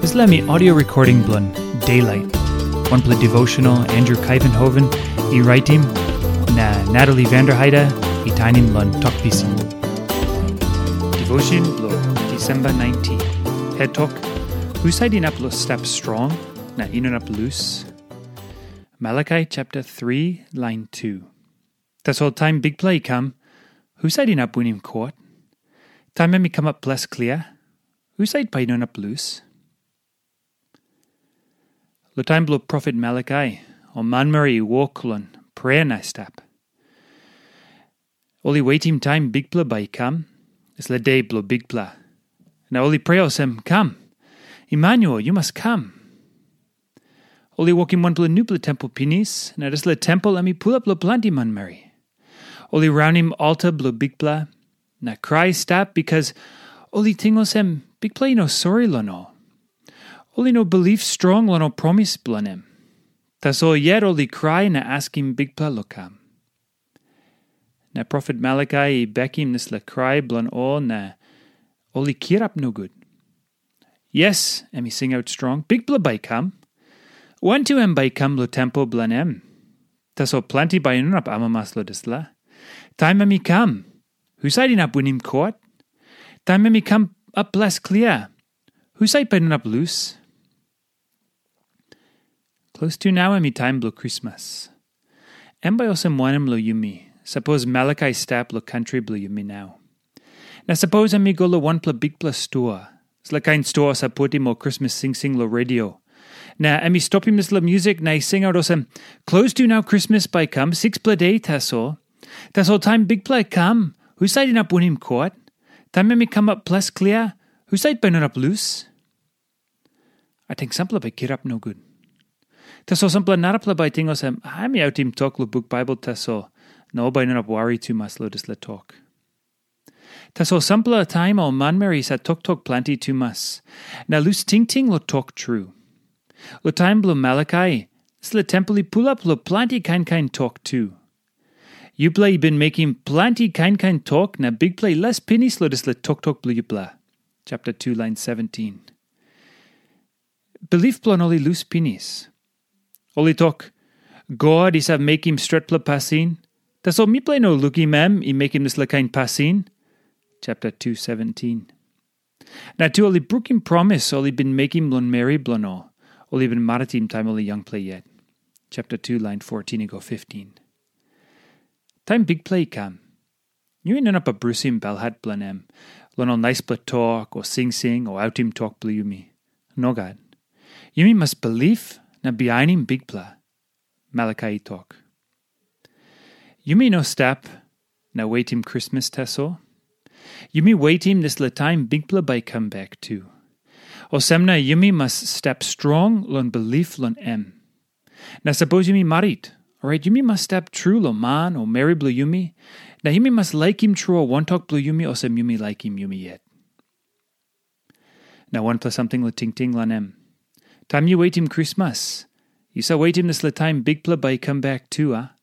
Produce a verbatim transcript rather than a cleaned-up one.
Dispela mi audio recording bilong Daylight, wanpela devotional Andrew Kaivenhoven i raitim, na Natalie Vanderheide i tainim long Tok Pisin. Devotion bilong Disemba nineteen. Het tok, husat inap lo stap strong na inap lus? Malakai chapter three, line two. Tasol taim Bikpela i kam, husat inap winim kot? Taim em i kamap ples klia, husat bai i no inap lus? Lo taim bilong profet Malakai, ol manmeri i wok long prea na stap. Ol i wetim taim Bikpela bai i kam, dispela de bilong Bikpela. Na ol i prea olsem, kam, Emanuel, yu mas kam. Ol i wokim wanpela nupela tempel pinis, na dispela tempel em i pulap long planti manmeri. Ol i raunim alta bilong Bikpela, na krai i stap bikas ol i ting olsem Bikpela i no sori long ol. Ol i no bilip strong long ol promis bilong em. Tasol yet ol i krai na askim Bikpela long kam. Na profet Malakai i bekim dispela krai bilong ol na ol i kirap nogut. Yes, em i singaut strong, Bikpela bai i kam. Wantu em bai i kam long tempel bilong em. Tasol planti bai i no inap amamas long dispela. Taim em i kam, husat inap winim kot? Taim em i kam ap ples klia, husat bai i no inap lus? Klostu nau em i taim bilong Krismas. Em bai olsem wanem long yumi, sapos Malakai i stap long kantri bilong yumi nau? Na sapos em i go long wanpela bikpela stua, dispela kain stua save putim ol Krismas singsing long redio. Na em i stopim dispela musik na i singaut olsem, klostu nau Krismas bai i kam, sikspela de tasol. Tasol taim Bikpela i kam, husat inap winim kot? Taim em i kamap ples klia, husat bai i no inap lus? Ating sampela bai kirap nogut. Tasol sampela narapela bai ting olsem, em i autim tok long buk Baibel tasol, na ol bai i no inap wari tumas long dispela tok. Tasol sampela taim ol manmeri i save toktok planti tumas, na lus tingting long tok tru. Long taim bilong Malakai, dispela tempel i pulap long planti kain kain tok tu. Yupela i bin mekim planti kain kain tok, na Bikpela i les pinis long dispela toktok bilong yupela. Chapter two, line seventeen. Bilip bilong ol i lus pinis. Ol i tok, God i save mekim stretpela pasin, tasol mipela i no lukim em i mekim dispela kain pasin. Chapter two seventeen. Na tu ol i brukim promis ol i bin mekim long meri bilong ol, ol i bin maritim taim ol i yangpela yet. Chapter two, line fourteen i go fifteen. Taim Bikpela i kam, yumi no inap brusim belhat bilong em, long ol naispela tok o singsing o autim tok bilong yumi. Nogat. Yumi mas bilip na bihainim Bikpela, Malakai i tok. Yumi no stap na wetim Krismas tasol. Yumi wetim dispela taim Bikpela bai i kam bek tu. Olsem na yumi mas stap strong long bilip long em. Na sapos yumi marit, orait yumi mas stap tru long man o meri bilong yumi, na yumi mas laikim tru ol wantok bilong yumi olsem yumi laikim yumi yet. Na wanpela samting long tingting long em. Taim yu wetim Krismas, yu save wetim dispela taim Bikpela bai i kam bek tu, a?